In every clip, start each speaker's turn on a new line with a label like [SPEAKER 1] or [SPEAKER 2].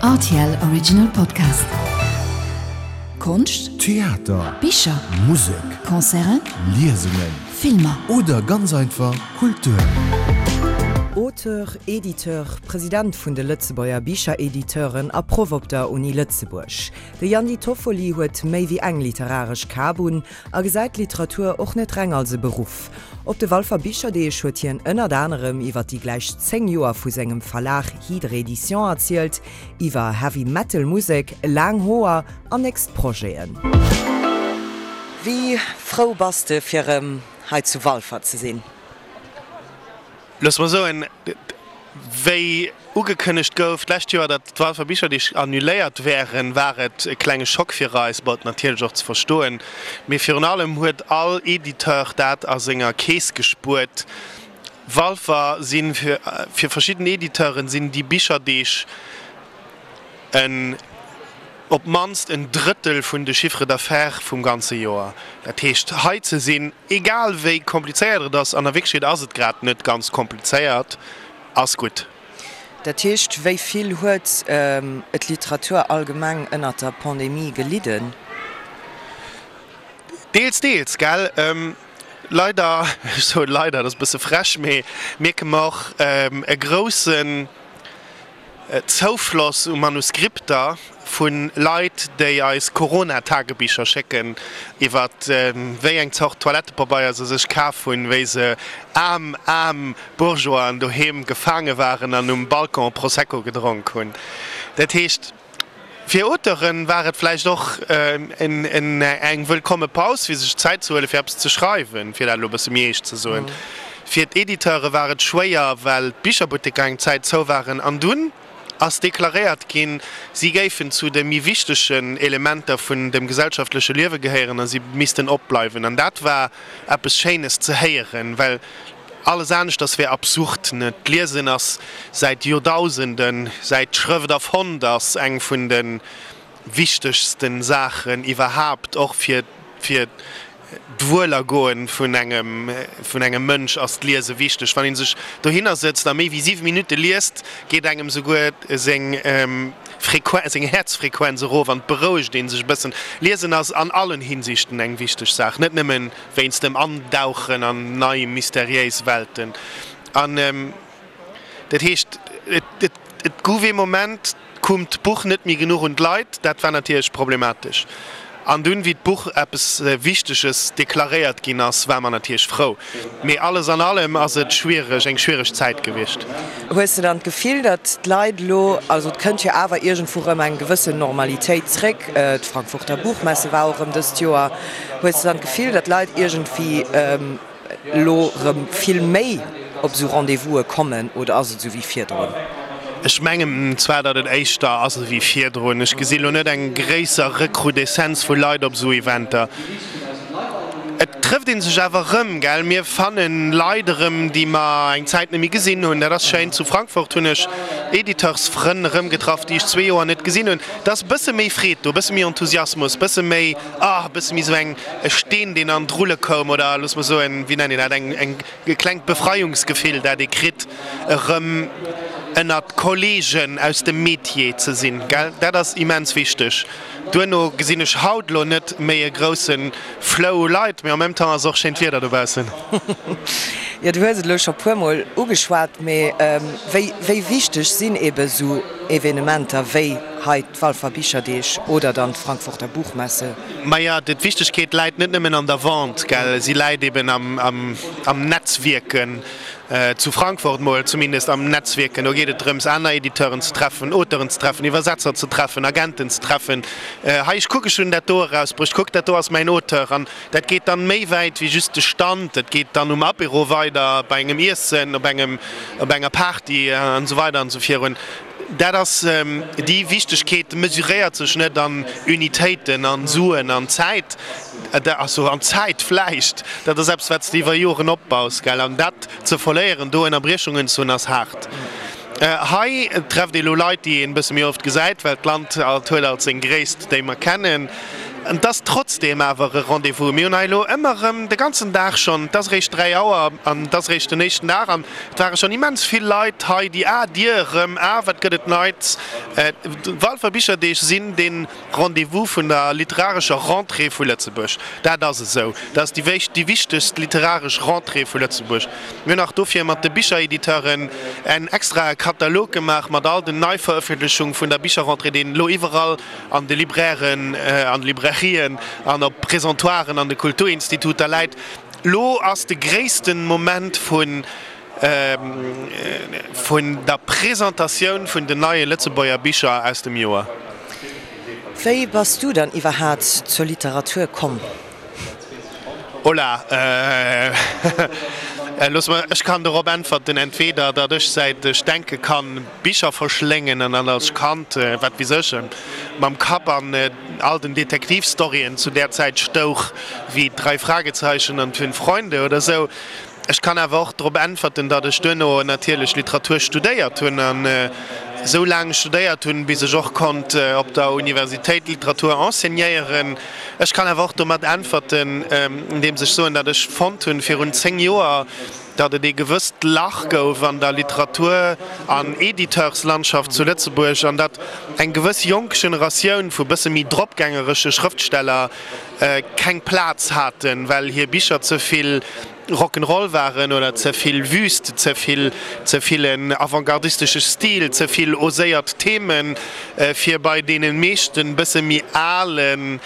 [SPEAKER 1] Rtl Original Podcast. Konscht,
[SPEAKER 2] Theater,
[SPEAKER 1] Bicher,
[SPEAKER 2] Musek,
[SPEAKER 1] Concerten,
[SPEAKER 2] Liesungen
[SPEAKER 1] Filmer.
[SPEAKER 2] Oder ganz einfach Kultur.
[SPEAKER 3] Auteur, Editeur, President vun de Lëtzebuerger Bicherediteuren a Proff op der Uni Lëtzebuerg. De Yandy Toffoli huet méi wéi eng literaresch Kap un a gesäit d'Literatur och net reng als e Beruff. Op de Walfer Bicherdeeg huet hien ënnert anerem iwwer déi gläich 10 Joer vu sengem Verlag Hydre Edition erzielt, iwwer Heavy Metal Musek, laang Hoer an nächst Projeten. Wéi frou bass de fir erëm hei zu Walfer ze sinn?
[SPEAKER 4] Loosse mer soen, wéi ugekënnegt gouf d'lescht Joer, datt d'Walfer Bicherdeeg annuléiert wären, war et e klenge Schock fir eis, bon, natierlech och ze verstoen, mee virun allem huet all Editeur dat a senger Keess gespuert. Walfer si fir verschidden Editeuren sinn déi Bicherdeeg en op d'mannst en Drëttel vun de Chiffre d'affaires vum ganze Joer. Dat heescht, hei ze sinn, egal wéi komplizéiert et ass, an a Wierklechkeet ass et grad net ganz komplizéiert, ass gutt.
[SPEAKER 3] Dat heescht, wéi vill huet d'Literatur allgemeng ënnert der Pandemie gelidden?
[SPEAKER 4] Deels, deels, gell. Leider, ech soen leider, dat ass e bësse frech, mee mierke mer och e groussen Zoufloss u Manuskripter vu Leit, déi eis Corona-Tagebicher schécken, iwwer wéi eng Zort Toilettepabeier se sech kaf hunn, wéi se aarm, aarm Bourgeoisen doheem gefaange waren an um Balcon Prosecco gedronk hunn. Dat heescht. Fir Auteuren war et vläicht och eng wëllkomme Paus, fir sech Zäit ze huelen, fir eppes ze schreiwen, fir dat elo e bësse méi eescht ze soen. Fir d'Editeure war et schwéier, well d'Bicherbutteker eng Zäit zou waren. An dunn ass deklaréiert ginn, si géifen zu de méi wichtegen Elementer vun dem gesellschaftleche Liewe gehéieren a si missten opbleiwen. An dat war eppes Schéines ze héieren, well Alles aneschters wär absurd. D'Liesen ass säit Joerdausenden, säit d'Schrëft erfonnt ass, eng vun de wichtegste Saachen iwwerhaapt. Och fir fir d'Wuelergoen vun engem vun engem Mënsch ass d'Liese wichteg. Wann ee sech dohinner sëtzt a méi wéi 7 Minutte liest, geet engem souguer seng Frequen seng Häerzfrequenz erof an et berouegt ee sech e bëssen. Liesen ass an allen Hinsichten eng wichteg Saach, net nëmmen wéinst dem Andauchen an nei mysteriéis Welten. An dat heescht, et gouf ee Moment, koum d'Buch net méi genuch un d'Leit. Dat war natierlech problematesch. An dunn, wéi d'Buch eppes Wichteges deklaréiert ginn ass, war mer natierlech frou. Mee alles an allem ass et schwiereg, eng schwiereg Zäit gewiescht.
[SPEAKER 3] Hues de dann d'Gefill, datt d'Leit elo, also et kënnt jo awer iergendwou erëm eng gewëssen Normalitéit zréck, d'Frankfurter Buchmesse war och erëm dëst Joer, Hues de dann d'Gefill, datt d'Leit iergendwéi elo erëm vill méi op esou Rendez-vouse kommen oder ass et esou wéi virdrun?
[SPEAKER 4] Ech mengen zwar, datt et éischter ass ewéi virdrun. Ech gesi lo net eng gréisser Recrudescence vu Leit op esou Eventer. Et trëfft ee sech awer erëm, gell? Mir fanne Leit erëm, déi mer eng Zäit net méi gesinn hunn. Dat ass schéin. Zu Frankfurt hunn ech Editeursfrënn erëmgetraff, déi ech zwee Joer net gesinn hunn. Et ass e bësse méi Freed do, e bësse méi Enthusiasmus, e bësse méi. Ah, e bësse méi esou eng, e Steen, deen an d'Rulle koum, oder looss mer soen, wéi nennt een dat, eng, eng, e klengt Befreiungsgefill, dat ee kritt, erëm ënnert Kollegen aus dem Metier ze sinn, gell? Dat ass immens wichteg. Duerno gesinn ech haut elo net méi e grousse Flow u Leit, mee en même temps ass och schéint Wieder dobaussen.
[SPEAKER 3] Jo, du hues et elo scho puermol ugeschwat, mee wéi, wéi wichteg sinn eebe esou Evenementer wéi hei d'Walfer Bicherdeeg oder dann d'Frankfurter Buchmesse?
[SPEAKER 4] Maja, d'Wichtegkeet läit net nëmmen an der Vente, gell, si läit eben am Netzwierken, zu Frankfurt mol zumindest am Netzwierken. Do geet et drëms, aner Editeuren ze treffen, Auteuren ze treffen, Iwwersetzer ze treffen, Agenten ze treffen. Hei, ech kuck, ech hunn dat do erausbruecht, kuck, dat do ass mäin Auteur. An dat geet dann méi wäit wéi just de Stand, dat geet dann um Apéro weider, bei engem Iessen, op engem, op enger Party an esou weider an esou virun. Dat ass, déi Wichtegkeet mesuréiert sech net an Unitéiten, an Suen, an Zäit, also an Zäit vläicht, dat ass eppes wat s de iwwer Joren opbaus, gell, an dat ze verléieren, do Ënnerbriechungen ze hunn, ass haart. Hei trefft ee lo Leit, déi een e bësse méi oft gesäit, well d'Land alt huet alt seng Gréisst, déi mer kennen. Et ass trotzdeem awer e Rendez-vous. Mir hunn hei elo ëmmer erëm de ganzen Dag schonn, et ass eréischt 3 Auer an et ass eréischt den éischten Dag an et ware schonn immens vill Leit hei, déi, ah Dir erëm, ah wat gëtt et Neits. D'Walfer Bicherdeeg sinn dee Rendez-vous vun der literarescher Rentrée vu Lëtzebuerg. Dat ass esou. Dat ass déi déi wichtegst literaresch Rentrée vu Lëtzebuerg. Mir hunn nach dofir mat de Bicherediteuren en extrae Katalog gemaach mat all den Neiverëffentlechung vun der Bicherrentrée, deen elo iwwerall an de Librairen, an de Librairien an op Présentoiren an de Kulturinstituter läit. Lo ass de gréissten Moment vun vun der Presentatioun vun den neie Lëtzebuerger Bicher aus dem Joer.
[SPEAKER 3] Wéi bass du dann iwwerhaat zur Literatur komm?
[SPEAKER 4] Hola, looss mer, ech kann dorop äntwerten, entweder datt ech säit ech denke kann Bicher verschléngen an dann als Kand, wat weess ech, mam Kapp an all den Detektivstoryen zu där Zäit stouch, wéi Drei Fragezeichen an Fünf Freunde oder sou. Ech kann awer och drop äntwerten, datt ech duerno natierlech Literatur studéiert hunn an esou laang studéiert hunn, bis ech och konnt op der Universitéit Literatur enseignéieren. Ech kann awer och domat äntwerten, andeems ech soen, datt ech fonnt hunn virun 10 Joer, datt et ee gewësst Lach gouf an der Literatur an Editeurslandschaft zu Lëtzebuerg an datt eng gewëss jonk Generatioun vu bësse méi dropgängeresche Schrëftsteller keng Plaz haten, well hir Bicher ze vill Rock'n'Roll waren oder ze vill wüst, ze vill, ze vill en avantgardistesche Stil, ze vill oséiert Themen, fir bei deene meeschten bësse méi alen,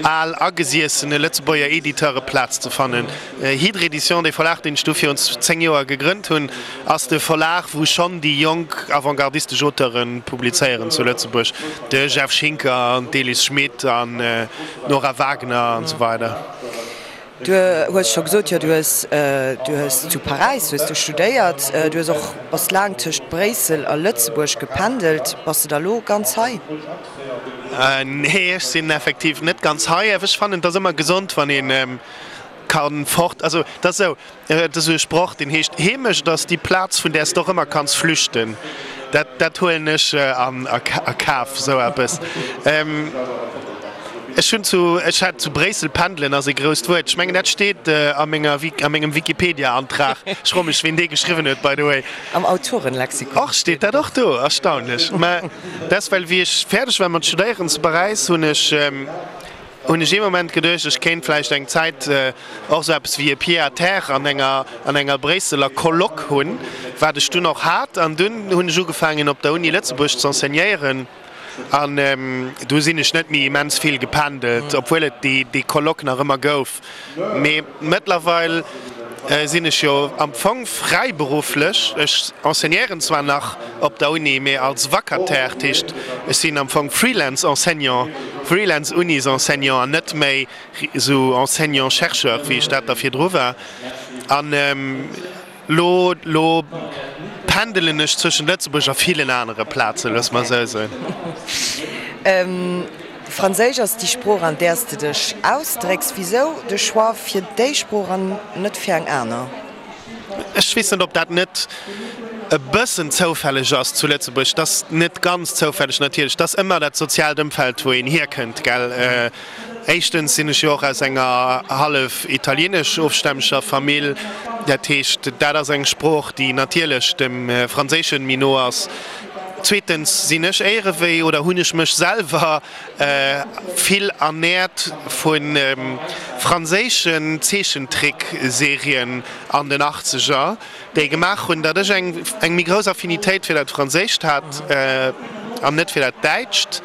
[SPEAKER 4] al agesiessene Lëtzebuerger Editeure Plaz ze fannen. Hydre Edition, dee Verlag, deen ech du virun 10 Joer gegrënnt hunn, ass de Verlag, wou schonn déi jonk avantgardistesch Auteure publizéieren zu Lëtzebuerg, de Jeff Schinker an d'Elis Schmit an d'Nora Wagner an esou weider.
[SPEAKER 3] Du hues scho gesot, jo, du hues, du hues zu Paräis hues du studéiert, du hues och, bass laang tëscht Bréissel a Lëtzebuerg gependelt. Bass de da lo ganz hei?
[SPEAKER 4] Nee, ech sinn effektiv net ganz hei. Awer ech fannen, et ass ëmmer gesond, wann ee ka fort, also et ass esou, Et ass esou e Sproch, deen heescht, Heemecht ass déi Plaz, vun där s de och ëmmer kanns flüchten. Dat, dat huelen ech an a Kaf, esou eppes. Ech hunn zu, ech hat zu Bréissel, pendelen ass e grousst Wuert, ech mengen, dat steet a menger, a mengem Wikipedia-Antrag. Ech froe mech, ween dee geschriwwen huet, by the way.
[SPEAKER 3] Am Autorenlexikon.
[SPEAKER 4] Och, steet dat och do? Erstaunlech. Mä dat ass, well wéi ech fäerdeg war mat studéieren zu Paräis, hunn ech, hunn ech ee Moment geduecht, ech kéint vläicht eng Zäit och esou eppes wéi e Pied-à-terre an enger an enger Bréisseler Coloc hunn, wat ech dunn och hat. An dunn hunn ech ugefaangen op der Uni Lëtzebuerg ze enseignéieren an du sinn ech net méi immens vill gependelt, obwuel et déi déi Coloc nach ëmmer gouf. Mee mëttlerweil sinn ech jo am Fong fräiberufflech. Ech enseignéieren zwar nach op der Uni, mee als Vacataire, dat heescht ech sinn am Fong Freelance-Enseignant, Freelance-Unis-Enseignant an net méi esou Enseignant-chercheur, wéi ech dat da virdru war. An lo, lo pendelen ech zwëschent Lëtzebuerg a villen anere Plazen, loosse mer esou soen.
[SPEAKER 3] Franséisch ass déi Sprooch, an där s de dech ausdrécks. Wisou de Choix fir déi Sprooch an net fir eng aner?
[SPEAKER 4] Ech weess net, ob dat net e bëssen zoufälleg ass zu Lëtzebuerg. Et ass net ganz zoufälleg natierlech. Et ass ëmmer dat soziaalt Ëmfeld, wou een hierkënnt, gell. Éischtens sinn ech jo och aus enger hallef italieenesch ofstämmeger Famill. Dat heescht, dat ass eng Sprooch, déi natierlech dem Franséischen méi no ass. Zweetens sinn ech éierewéi oder hunn ech mech selwer vill ernährt vu franséischen Zeechentrickserien an den Achtzeger, déi gemaach hunn, datt ech eng eng méi grouss Affinitéit fir dat Franséischt hat an net fir dat Däitscht.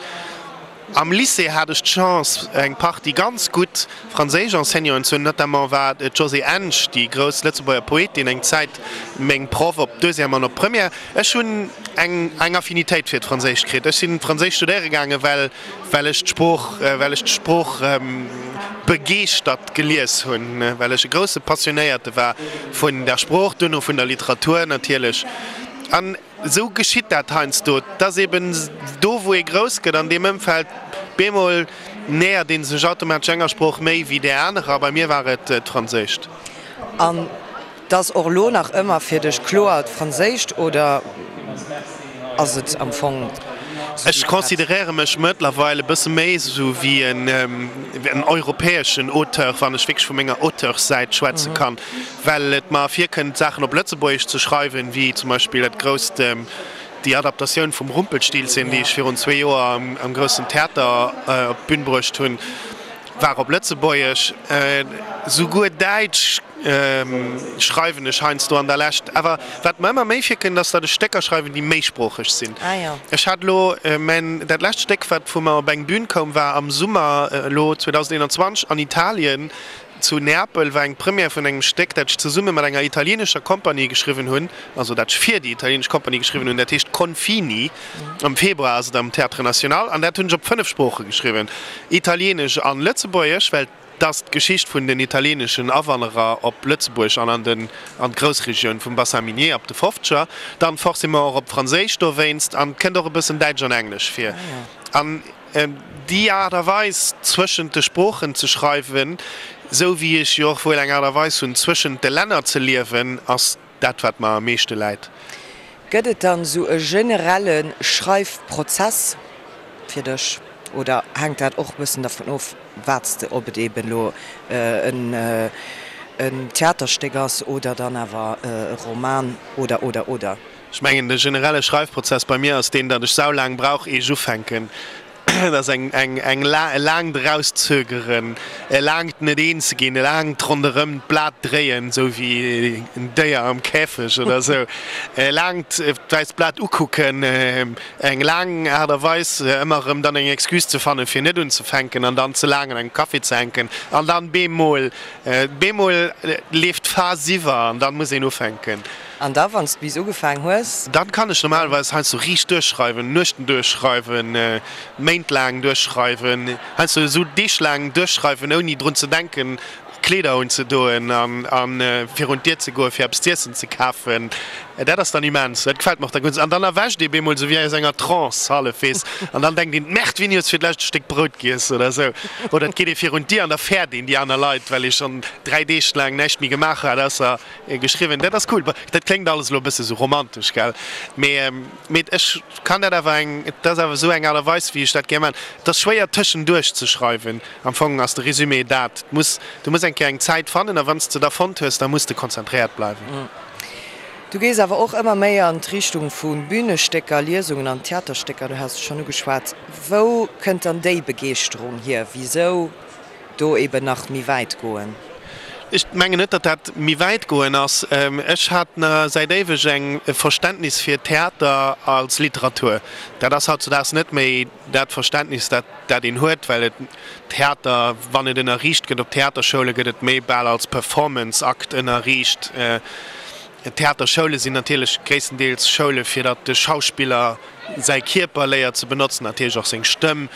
[SPEAKER 4] Am Lycée hat ech d'Chance, eng Partie ganz gutt franséisch Enseignanten ze hunn. Notamment war d'Josée Ensch, déi grouss Lëtzebuerger Poetin, eng Zäit meng Proff op Deuxième an op Première. Ech hunn eng eng Affinitéit fir d'Franséischt kritt. Ech sinn Franséisch studéiere gaangen, well well ech d'Sprooch well ech d'Sprooch begeeschtert gelies hunn, well ech e grousse Passionéierte war vun der Sprooch, duerno vun der Literatur natierlech. An Esou geschitt dat heiansdo. Et ass eben do, wou ee grouss gëtt, an deem Ëmfeld, bemol nähert ee sech automatesch enger Sprooch méi wéi där anerer. Bei mir war et d'Franséischt.
[SPEAKER 3] An 't ass och elo nach ëmmer fir dech kloer d'Franséischt oder ass et am Fong.
[SPEAKER 4] Ech consideréiere mech mëttlerweil e bësse méi esou wéi en europäeschen Auteur, wann ech wierklech vu menger Auteurssäit schwätze kann, well et mer virkënnt, Saachen op Lëtzebuergesch ze schreiwen, wéi zum Beispill dat grousst, déi Adaptatioun vum Rumpelstilzchen, déi ech virun zwee Joer am Groussen Theater op d'Bün bruecht hunn, war op Lëtzebuergesch. Souguer Däitsch schreiwen ech heiansdo an der Lescht. Awer wat mer ëmmer méi virkënnt, ass, datt ech Stécker schreiwen, déi méisproocheg sinn. Ech hat elo mäin, dat lescht Stéck, wat vu mer op eng Bühn koum, war am Summer elo 2021 an Italien, zu Neapel, war eng Première vun engem Stéck, dat ech zesumme mat enger italienescher Compagnie geschriwwen hunn, also dat ech fir déi italienesch Compagnie geschriwwen hunn. Dat heescht Confini. Am Februar ass et am Théâtre National an dat hunn ech op 5 Sprooche geschriwwen, Italienesch an Lëtzebuergesch, well 't ass d'Geschicht vun den italieneschen Awanderer op Lëtzebuerg an an den an d'Groussregioun vum Bassin minier ab de Fofzeger, dann forcément och op Franséisch dowéinst an 't kënnt och e bëssen Däitsch an Englesch vir. An déi Aart a Weis zwëschent de Sproochen ze schreiwen, sou wéi ech jo och wuel eng Aart a Weis hunn zwëschent de Länner ze liewen, ass dat wat mer am meeschte läit.
[SPEAKER 3] Gëtt et dann esou e generelle Schreifprozess fir dech oder hänkt dat och e bëssen dervun of, wat s de, ob et eben elo en Theaterstéck ass oder dann awer e Roman oder oder oder?
[SPEAKER 4] Ech mengen de generelle Schreifprozess bei mir ass deen, datt ech saulaang brauch ier ech ufänken. Et ass eng eng eng e laangt Erauszögeren, e laangt net eens ginn, e laangt ronderëm d'Blat dréien, esou wéi en Déier am Käfeg oder esou, e laangt d'wäisst Blat ukucken, eng laang Aart a Weis ëmmer erëm dann eng Excuse ze fannen, fir net unzefänken an dann ze laang an engem Café ze hänken an dann bemol, bemol leeft d'Phas iwwer an dann muss een ufänken.
[SPEAKER 3] An da wann s de bis ugefaang hues?
[SPEAKER 4] Dann kann ech normalerweis heiansdo riicht duerchschreiwen, Nuechten duerchschreiwen, Méint laang duerchschreiwen, heiansdo esou Deeg laang duerchschreiwen ouni drun ze denken Kleeder unzedoen an virun d'Dier ze goen fir eppes z'iessen ze kafen. Dat ass dann immens, dat gefält mer och da gutt. An dann erwächt ee bemol esou wéi aus enger Trance hallef, weess, an dann denkt een, Merde, wéini hues de fir d'lescht e Stéck Brout giess oder esou. Oder et geet ee virun d'Dier an da fäert een déi aner Leit, well ee schonn 3 Deeg laang näischt méi gemaach hat ausser Geschriwwen. Dat ass cool. Dat kléngt alles elo e bësse sou romantesch, gell? Mee, mee ech kann dat awer eng, et ass awer esou eng Aart a Weis, wéi ech dat gär maachen. Et ass schwéier tëschenduerch ze schreiwen. Am Fong ass de Résumé dat, et muss, du muss eng Kéier eng Zäit fannen a wann s de da fonnt hues, da muss de konzentréiert bleiwen.
[SPEAKER 3] Du gees awer och ëmmer méi an d'Richtung vu Bünestécker, Liesungen an Theaterstécker, du has et schonn ugeschwat. Wou kënnt dann déi Begeeschterung hier? Wisou do eben nach méi wäit goen?
[SPEAKER 4] Ech mengen net, datt dat méi wäit goen ass. Ech hat säit éiweg eng Verständnis fir Theater als Literatur. Dat ass hautzudaags net méi dat Verständnis, dat dat een huet, well et Theater, wann et ënnerriicht gëtt op Theaterschoule, gëtt et méi bal als Performance-Akt ënnerriicht. Theaterschoule sinn natierlech gréisstendeels Schoule fir datt de Schauspiller säi Kierper léiert ze benotzen, natierlech och seng Stëmm.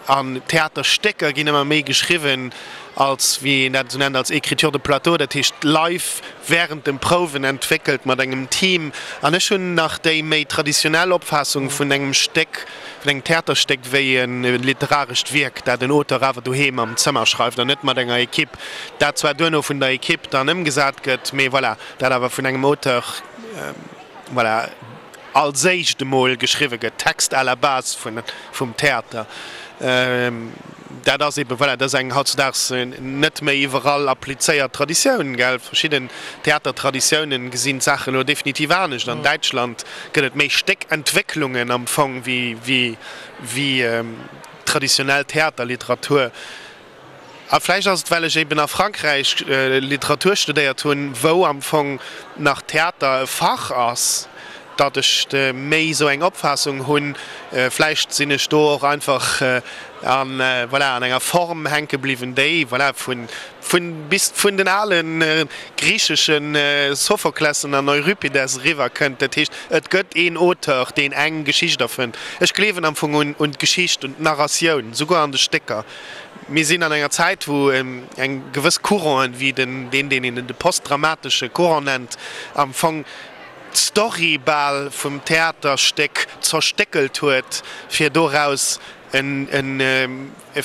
[SPEAKER 4] An Theaterstécker ginn ëmmer méi geschriwwen als, wéi een dat esou nennt, als Écriture de plateau, dat heescht live wärend dem Prouwen entwéckelt mat engem Team. An ech hunn nach déi méi traditionell Opfaassung vun engem Stéck, vun engem Theaterstéck wéi e literarescht Wierk, dat en Auteur awer doheem am Zëmmer schreift an net mat enger Equipe, dat zwar duerno vun der Equipe dann ëmgesat gëtt, mee voilà, dat awer vun engem Auteur, voilà. als éischt emol geschriwwe gëtt, Text à la base vun, vum Theater. Dat ass eebe, voilà, dat ass eng hautzudaags net méi iwwerall applizéiert Traditioun, gell. Verschidden Theatertraditiounen gesinn d'Saachen elo definitiv anescht. An Däitschland gëtt et méi Stéckentwécklungen am Fong wéi, wéi, wéi traditionell Theaterliteratur. A vläicht ass et, well ech eben a Frankräich Literatur studéiert hunn, wou am Fong nach Theater e Fach ass, datt ech méi esou eng Opfaassung hunn. Vläicht sinn ech do och einfach an, voilà, an enger Form hänke bliwwen, déi, voilà, vun, vun bis vun den ale griichesche Sophoklessen an Euripides eriwwer kënnt. Dat heescht, et gëtt een Auteur, deen eng Geschicht erfënnt. Ech gleewen am Fong un, un d'Geschicht, un d'Narratioun, souguer an de Stécker. Mir sinn an enger Zäit, wou eng gewëss Couranten, wéi den, deen, deen een de postdramatesche Courant nennt, am Fong d'Story bal vum Theaterstéck zerstéckelt huet, fir doraus en, en, e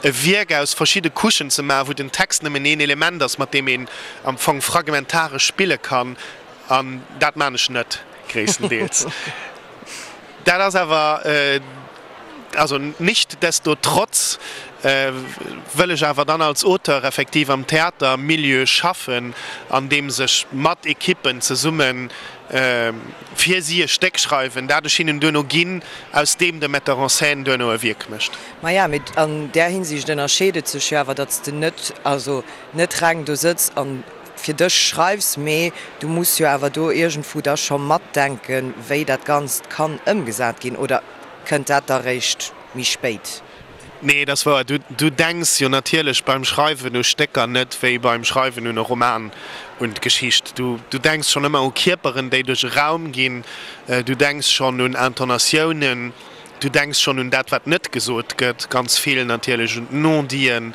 [SPEAKER 4] Wierk aus verschidde Couchen ze maachen, wou den Text nëmmen een Element ass, mat deem een am Fong fragmentaresch spille kann. An dat maan ech net, gréisstendeels. Dat ass awer, also nichtsdestotrotz wëll ech awer dann als Auteur effektiv am Theatermilieu schaffen, andeems ech mat Ekippen zesumme fir si e Stéck schreiwen, dat ech hinnen duerno ginn, aus deem de Metteur en scène duerno e Wierk mécht.
[SPEAKER 3] Maja, mee an där Hinsicht ënnerscheet et sech jo awer, datt s de net, also net reng do sëtz an fir dech schreifs, mee du muss jo awer do iergendwou da scho matdenken, wéi dat Ganzt kann ëmgesat ginn, oder kënnt dat da réischt méi spéit?
[SPEAKER 4] Nee, et ass wouer. Du denks jo natierlech beim Schreiwen u Stécker net wéi beim Schreiwen un e Roman, un d'Geschicht. Du denks schonn ëmmer u Kierperen, déi duerch e Raum ginn. Du denks schonn un Intonatiounen. Du denks schonn un dat, wat net gesot gëtt, ganz vill natierlech un d'Non-diten.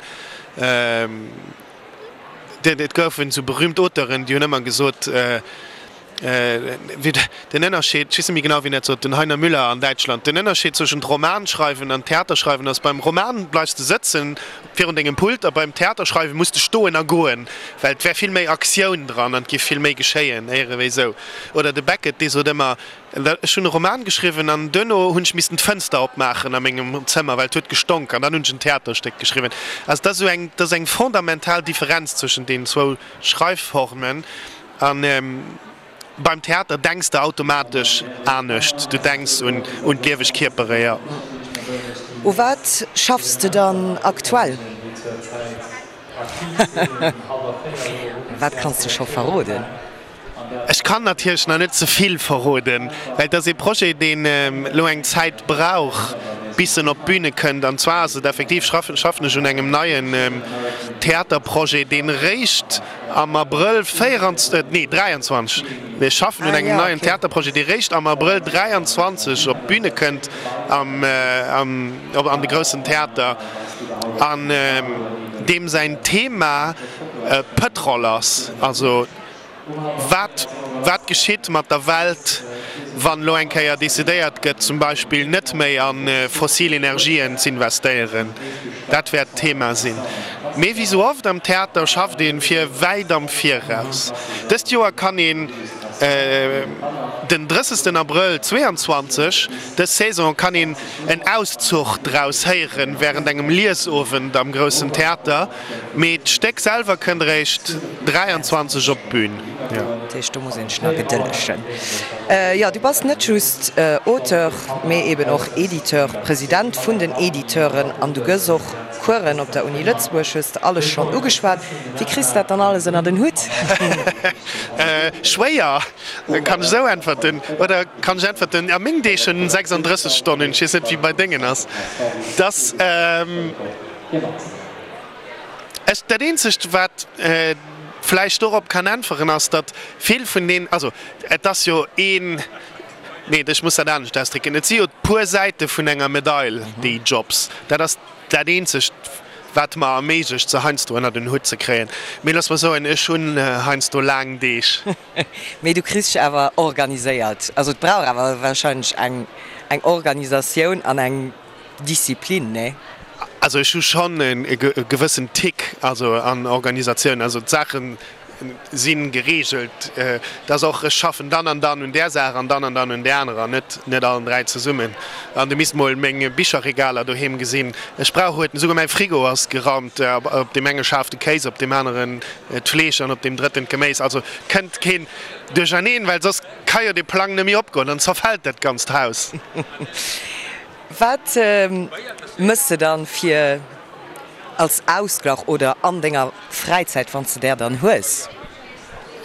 [SPEAKER 4] Et goufen esou berüümt Auteuren, déi hunn ëmmer gesot, den Ënnerscheed, ech weess net méi genau, wien dat sot, den Heiner Müller an Däitschland, den Ënnerscheed zwëschent Romanschreiwen an Theaterschreiwen ass, beim Roman bleifs de sëtzen virun dengem Pult a beim Theaterschreiwe muss de stoen a goen, well et wär vill méi Aktioun dran an et géif vill méi geschéien, éiere wéi esou. Oder de Beckett, dee sot ëmmer, Ech hunn e Roman geschriwwen an duerno hunn ech missten d'Fënster opmaachen a mengem Zëmmer, well et huet gestonk an dann hunn ech en Theaterstéck geschriwwen. Also et ass esou eng, et ass eng fondamental Differenz zwëschen deenen zwou Schreifformen. A beim Theater denks de automatesch anescht, du denks un un d'lieweg Kierpere, jo.
[SPEAKER 3] U wat schaffs de dann aktuell? Wat kanns de scho verroden?
[SPEAKER 4] Ech kann natierlech nach net ze vill verroden, well et ass ee Projet, deen elo eng Zäit brauch, bis en op d'Büne kënnt. An zwar ass et effektiv, schaffen ech un engem neien Theaterprojet, deen eréischt am Abrëll 24, nee 23, ech schaffen un engem neien Theaterprojet, dee réischt am Abrëll 23 op d'Büne kënnt am an de groussen Theater, an deem säin Thema Pëtrol ass. Also Wat, wat geschitt mat der Welt, wann elo eng Kéier decidéiert gëtt, zum Beispill net méi a fossil Energien z'investéieren? Dat wäert d'Thema sinn. Mee wéi sou oft am Theater schafft ee fir wäit am Viraus. Dëst Joer kann een den 30 Abrëll 22, dës Saison kann een en Auszuch draus héieren wärend engem Liesowend am Groussen Theater. Mee d'Stéck selwer kënnt eréischt 23 op d'Bün.
[SPEAKER 3] Dat heescht, do muss een sech nach gedëllegen. Jo, du bass net just Auteur, mee eben och Editeur, President vun den Editeuren an du gëss och Coursen op der Uni Lëtzebuerg, hues de alles schonn ugeschwat. Wéi kriss de dat dann alles ënnert en Hutt?
[SPEAKER 4] Schwéier, kann ech esou äntwerten. Oder kann ech äntwerten, a meng Deeg hunn 36 Stonnen, ech weess net, wéi bei dengen ass. Dass. Ech, dat eenzegt wat vläicht dorop kann äntweren ass, datt vill vun deen, also et ass jo een, nee ech muss dat anescht ausdrécken, et si jo puer Säite vun enger Medail déi Jobs. Dat ass dat eenzegt wat mer erméiglecht se heiansdo ënnert en Hutt ze kréien. Mee looss mer soen, ech hunn heiansdo laang Deeg.
[SPEAKER 3] Mee du kriss dech awer organiséiert. Also et brauch awer wahrscheinlech eng eng Organisatioun an eng Disziplin, nee?
[SPEAKER 4] Also ech hu schonn e gewëssen Tick, also an Organisatioun, also d'Saache si gereegelt, dass och ech schaffen dann an dann un där Saach an dann an dann un där anerer, net net allen 3 zesummen. An du misst mol meng Bicherregaler doheem gesinn, ech brauch huet, esouguer mäi Frigo ass geraumt, op deem enge Schaf de Kéis, op deem aneren d'Fleesch an op deem drëtten d'Geméis, also kënnt keen duercherneen, well soss ka jo dee Plang net méi opgoen, dann zerfält dat ganzt Haus.
[SPEAKER 3] Wat mëss de dann fir als Ausglach oder an denger Fräizäit, wann s de där dann hues?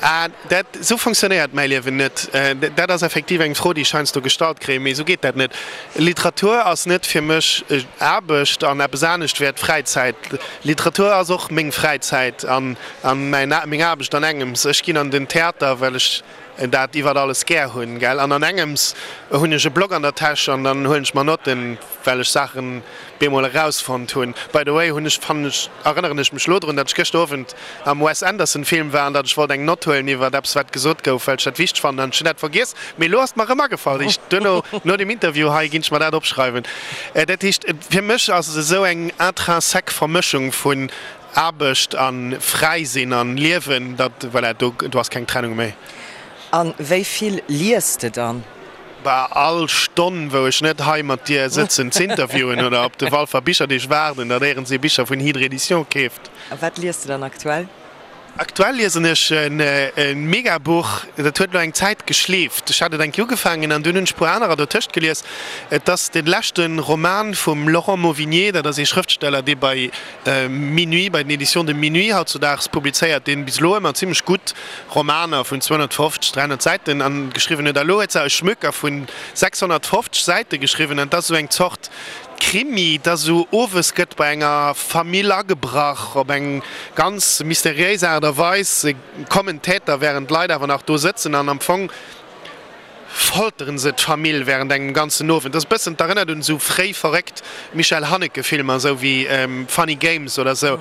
[SPEAKER 4] Ah, dat, esou funktionéiert mäi Liewen net. Dat ass effektiv eng Fro, déi ech heiansdo gestallt kréien, mee esou geet dat net. Literatur ass net fir mech Aarbecht an eppes anescht wär d'Fräizäit. Literatur ass och meng Fräizäit an meng Aarbecht an engems. Ech ginn an den Theater, well ech dat iwwert alles gär hunn, gell? An an engems hunn ech e Block an der Täsch an dann huelen ech mer Notten, well ech Saachen bemol erausfonnt hunn. By the way hunn ech, fannen ech, erënneren ech mech lo drun, datt ech gëschter Owend am Wes Anderson Film war an datt ech wollt eng Nott huelen iwwert eppes wat gesot gouf, well ech dat wichteg fannen an ech hunn dat vergiess. Mee lo ass et mer erëm agefall. Ech duerno, no dem Interview hei, ginn ech mer dat opschreiwen. Dat heescht, fir mech ass et esou eng intrinsèque Vermëschung vun Aarbecht an fräi sinn an liewen, dat, voilà, do, do ass keng Trennung méi.
[SPEAKER 3] An wéi vill liest de dann?
[SPEAKER 4] Bah, all Stonn, wou ech net hei mat dir sëtzen z'interviewen oder op de Walfer Bicherdeeg waarden, datt éierens ee Bicher vun Hydre Edition keeft.
[SPEAKER 3] A wat liest de dann aktuell?
[SPEAKER 4] Aktuell liesen ech e Megabuch, dat huet elo eng Zäit geschleeft. Ech hat et eng Kéier ugefaangen an dunn hunn ech e puer anerer dotëscht gelies. Et ass de leschte Roman vum Laurent Mauvignier, dat ass ee Schrëftsteller, dee bei Minuit, bei den Editions de Minuit hautzudaags publizéiert, deen bis elo ëmmer zimmlech gutt Romaner vun 250, 300 Säiten an geschriwwen huet. A lo huet se e Schmöker vun 650 Säite geschriwwen an et ass esou eng Zort Krimi, et ass esou, owes gëtt bei enger Famill agebrach, op eng ganz mysteriéis Aart a Weis kommen d'Täter, wärend d'Leit awer nach do sëtzen an am Fong folteren se d'Famill während engem ganzen Owend. Dat ass e bëssen, d'erënnert un esou fréi verréckt Michel Haneke Filmer, esou wéi Funny Games oder esou.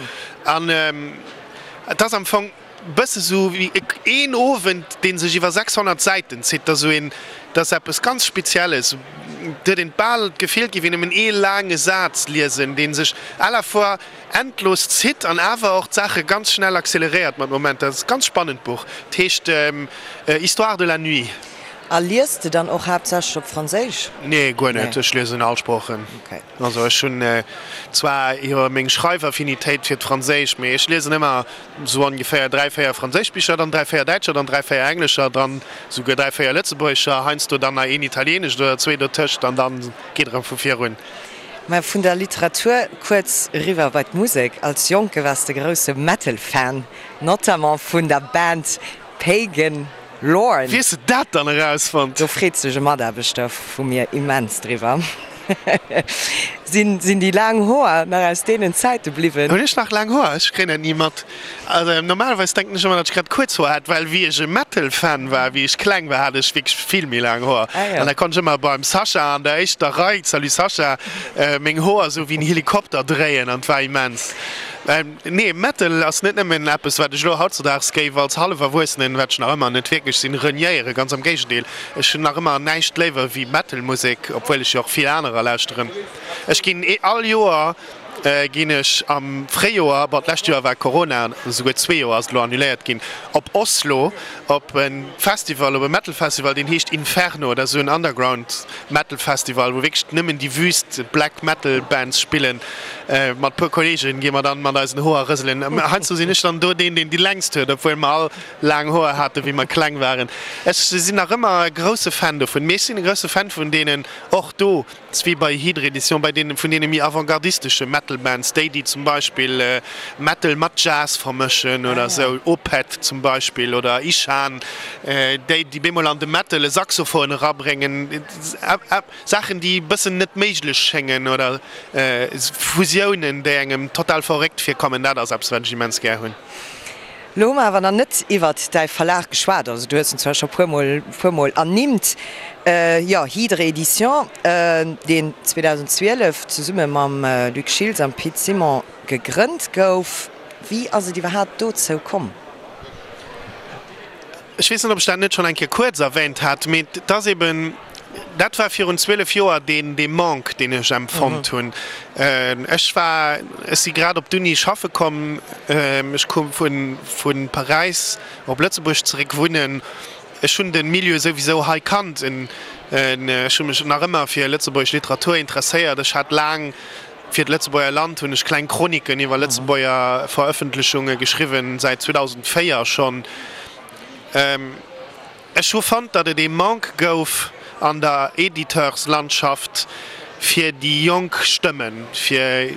[SPEAKER 4] An et ass am Fong e bësse sou wéi een Owend, dee sech iwwer 600 Säiten zitt. Dat ass esou een, dat ass eppes ganz Spezielles. Et huet een bal d'Gefill, et géif een nëmmen ee laange Saz liesen, dee sech à la fois endlos zitt an awer och d'Saache ganz schnell acceleréiert mat Momenter. Et ass e ganz spannend Buch. Et heescht Histoire de la nuit.
[SPEAKER 3] A liest de dann och haaptsächlech op Franséisch?
[SPEAKER 4] Nee, guer net. Ech liesen all Sproochen. Also ech hunn zwar jo meng Schreifaffinitéit fir d'Franséisch, mee ech liesen ëmmer esou ongeféier 3, 4 franséisch Bicher, dann 3, 4 däitscher, dann 3, 4 englescher, dann esouguer 3, 4 lëtzebuergescher, heiansdo dann nach een italienescht oder zwee dotëscht an dann geet erëm vu vir un.
[SPEAKER 3] Mä vun der Literatur kuerz eriwwer bei d'Musek. Als Jonke waars de grousse Metal-Fan, notamment vun der Band Pagan Lorn.
[SPEAKER 4] Wéi hues de dat dann erausfonnt?
[SPEAKER 3] Do freet sech e Mataarbechter vu mir immens driwwer. Sinn déi laang Hoer nach aus deenen Zäite bliwwen?
[SPEAKER 4] Hunn ech nach laang Hoer? Ech kréien dat ni mat. Also normalerweis denken ech ëmmer, datt ech grad kuerz Hoer hat, well wéi ech e Metal-Fan war, wéi ech kleng war, hat ech wierklech vill méi laang Hoer. An da konnt ech ëmmer beim Sascha an der éischter Rei, salut Sascha, meng Hoer esou wéi en Helikopter dréien an et war immens. Nee, Metal ass net nëmmen eppes, wat ech elo hautzedaags géif als hallef Erwuessenen, wat ech nach ëmmer net wierklech sinn, reniéieren. Ganz am Géigendeel, ech hunn nach ëmmer näischt léiwer wéi Metal-Musek, obwuel ech jo och vill anerer lauschteren. Ech ginn all Joer ginn ech am Fréijoer, bon d'lescht Joer war Corona, esouguer zwee Joer ass et elo annuléiert ginn, op Oslo op e Festival, op e Metal Festival, deen heescht Inferno. Dat ass esou en Underground Metal Festival, wou wierklech nëmmen déi wüst Black Metal Bands spillen. Mat puer Kolleegen gi mer dann mat eisen Hoer rëselen. Heiansdo sinn ech dann do deen, deen déi längst huet, obwuel mer all laang Hoer haten, wéi mer kleng waren. Ech sinn nach ëmmer e grousse Fan dovun. Mee ech sinn e grousse Fan vun deenen och do, s wéi bei Hydre Edition, bei deenen, vun deene méi avantgardistesche Metal Bands, déi, déi zum Beispill Metal mat Jazz vermëschen oder esou, Opeth zum Beispill oder Ishan, déi, déi bemol an de Metal e Saxophon erabréngen. Saachen, déi e bëssen net méiglech schéngen oder Fusiounen, déi engem total verréckt virkommen, dat ass eppes, wat ech immens gär hunn.
[SPEAKER 3] Lo hu mer awer nach net iwwert däi Verlag geschwat. Also du hues en zwar scho puermol, puermol ernimmt, jo, Hydre Éditions, deen 2012 zesumme mam Luc Schiltz am Pit Simon gegrënnt gouf. Wéi ass et iwwerhaapt dozou komm?
[SPEAKER 4] Ech weess net, ob ech dat net schonn eng Kéier kuerz erwähnt hat, mee et ass eben, dat war virun 12 Joer deen, dee Manque, deen ech empfonnt hunn. Ech war, ech si grad op d'Uni schaffe komm, ech koum vu, vu Paräis op Lëtzebuerg zeréck wunnen. Ech hunn de Milieu souwisou hei kannt, ech hu mech nach ëmmer fir lëtzebuergesch Literatur interesséiert. Ech hat laang fir d'Lëtzebuerger Land hunn ech kleng Chroniken iwwer Lëtzebuerger Verëffentlechunge geschriwwen, säit 2004 schonn. Ech hu fonnt, datt et ee Manque gouf an der Editeurslandschaft fir déi jonk Stëmmen, fir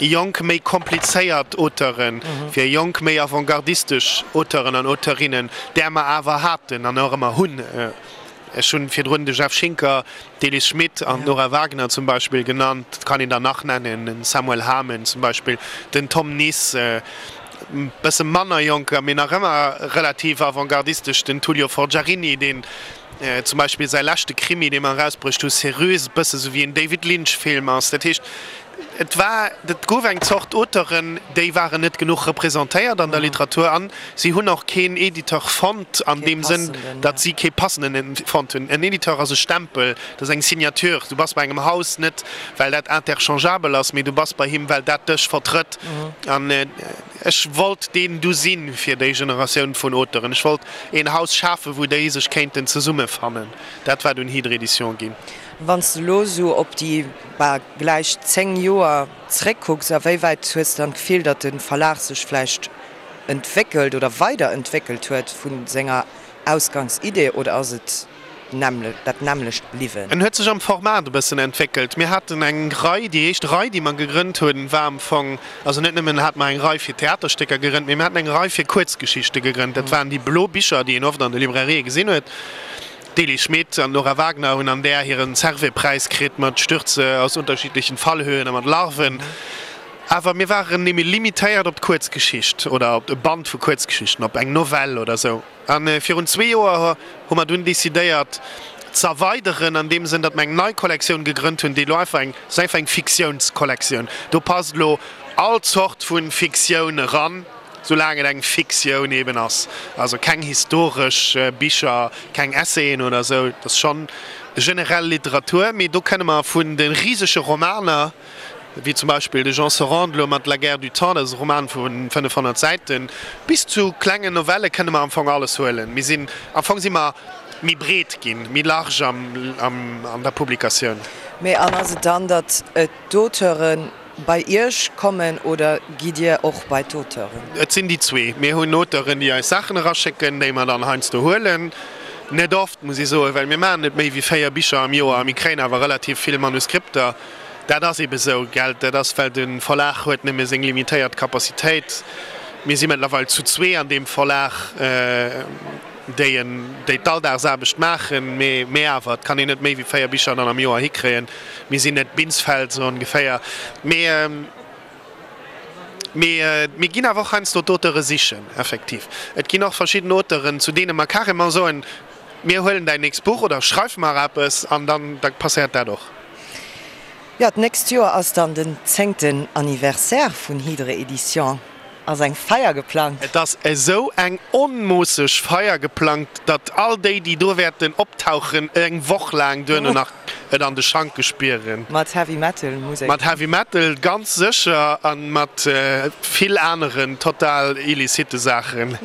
[SPEAKER 4] jonk méi komplizéiert Auteuren, fir jonk méi avantgardistesch Auteuren an Auteurinnen, där mer awer haten an och ëmmer hunn. Ech hunn virdrun de Jeff Schinker, d'Elis Schmit an d'Nora Wagner zum Beispill genannt. Et kann een der nach nennen, den Samuel Hamen zum Beispill, den Tom Nis, e bësse manner jonker, mee nach ëmmer relativ avantgardistesch, den Tullio Forgiarini, deen zum Beispill säi leschte Krimi, dee mer erausbruecht hu, Céruse, e bësse sou wéi en David Lynch-Film ass. Dat heescht. Et war, et gouf eng Zort Auteuren, déi waren net genuch representéiert an der Literatur an si hunn och keen Editeur fonnt an deem Sënn, datt si kee passenden fonnt hunn. En Editeur ass e Stempel, dat ass eng Signature. Du bass bei engem Haus net, well dat interchangeabel ass, mee du bass bei him, well dat dech vertrëtt. An ech wollt deen du sinn fir déi Generatioun vun Auteuren. Ech wollt een Haus schafen, wou déi sech kéinten zesummefannen. Dat war dunn Hydre Edition ginn.
[SPEAKER 3] Wann s de elo esou op déi bal gläich 10 Joer zréckkucks, a wéi wäit hues de dann d'Gefill, datt de Verlag sech vläicht entwéckelt oder weiderentwéckelt huet vu senger Ausgangsidee oder ass et dat nämmlecht bliwwen?
[SPEAKER 4] En huet sech am Format e bëssen entwéckelt. Mir haten eng Rei, déi éischt Rei, déi mer gegrënnt hunn, war am Fong, also net nëmmen hate mer eng Rei fir Theaterstécker gegrënnt, mee mir haten eng Rei fir Kuerzgeschichte gegrënnt. Dat waren déi blo Bicher, déi een oft an de Librairië gesinn huet. D'Elie Schmit an d'Nora Wagner hunn an där hiren Servais-Präis kritt mat Stürze aus unterschiedlichen Fallhöhen a mat Larven. Awer mir waren némme limitéiert op d'Kuerzgeschicht oder op e Band vu Kuerzgeschichten, op eng Novell oder sou. A virun zwee Joer hu mer dunn decidéiert z'erweideren an deem Sënn, datt mer eng nei Kollektioun gegrënnt hunn, déi elo einfach eng, ass einfach eng Fiktiounskollektioun. Do passt elo all Zort vu Fiktioun eran. Soulaang et eng Fiktioun eben ass, also keng historesch Bicher, keng Essayen oder esou, et ass schonn generell Literatur, mee do kënne mer vun de risege Romaner, wéi zum Beispill de Jean Sorande elo mat La guerre du temps, dat ass e Roman vu 500 Säiten, bis zu klengen Novelle kënne mer am Fong alles huelen. Mir sinn, am Fong si mer méi breet ginn, méi large an der Publikatioun.
[SPEAKER 3] Mee an ass et dann, datt d'Auteuren Bei Iech kommen oder gitt Dir och bei d'Auteuren?
[SPEAKER 4] Et sinn déi zwee. Mir hunn Auteuren, déi eis Saachen eraschécken, déi mer dann heiansdo huelen. Net oft, muss ech soen, well mir maachen net méi wéi 4 Bicher am Joer a mir kréien awer relativ vill Manuskripter. Dat ass eebe sou, gell. Dat ass, well de Verlag huet nëmme seng limitéiert Capacitéit. Mir si mëttlerweil zu zwee an deem Verlag, déi en, déi d'Alldagsaarbecht maachen. Mee, mee awer, et kann een net méi wéi 4 Bicher dann am Joer hikréien. Mir sinn net Binsfeld, sou ongeféier. Mee, mee mir ginn awer och heiansdo d'Auteure sichen, effektiv. Et ginn och verschidden Auteuren, zu deene mer carrément soen, Mir huelen däin nächst Buch oder schreif mar eppes an dann da passéiert dat och.
[SPEAKER 3] Jo, d'nächst Joer ass dann den zéngten Anniversaire vun Hydre Éditions. Ass eng Feier geplangt?
[SPEAKER 4] Et ass esou eng onmoosseg Feier geplangt, datt all déi, déi do wäerten optauchen, eng Woch laang duerno nach et an de Schanke spieren.
[SPEAKER 3] Mat Heavy Metal Musek?
[SPEAKER 4] Mat Heavy Metal ganz sécher a mat vill aneren total illicite Saachen.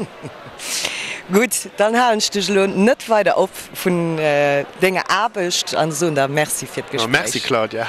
[SPEAKER 3] Gutt, dann halen ech dech elo net weider op vun denger Aarbecht an soen der Merci fir d'Gespréich.
[SPEAKER 4] Merci Claudia.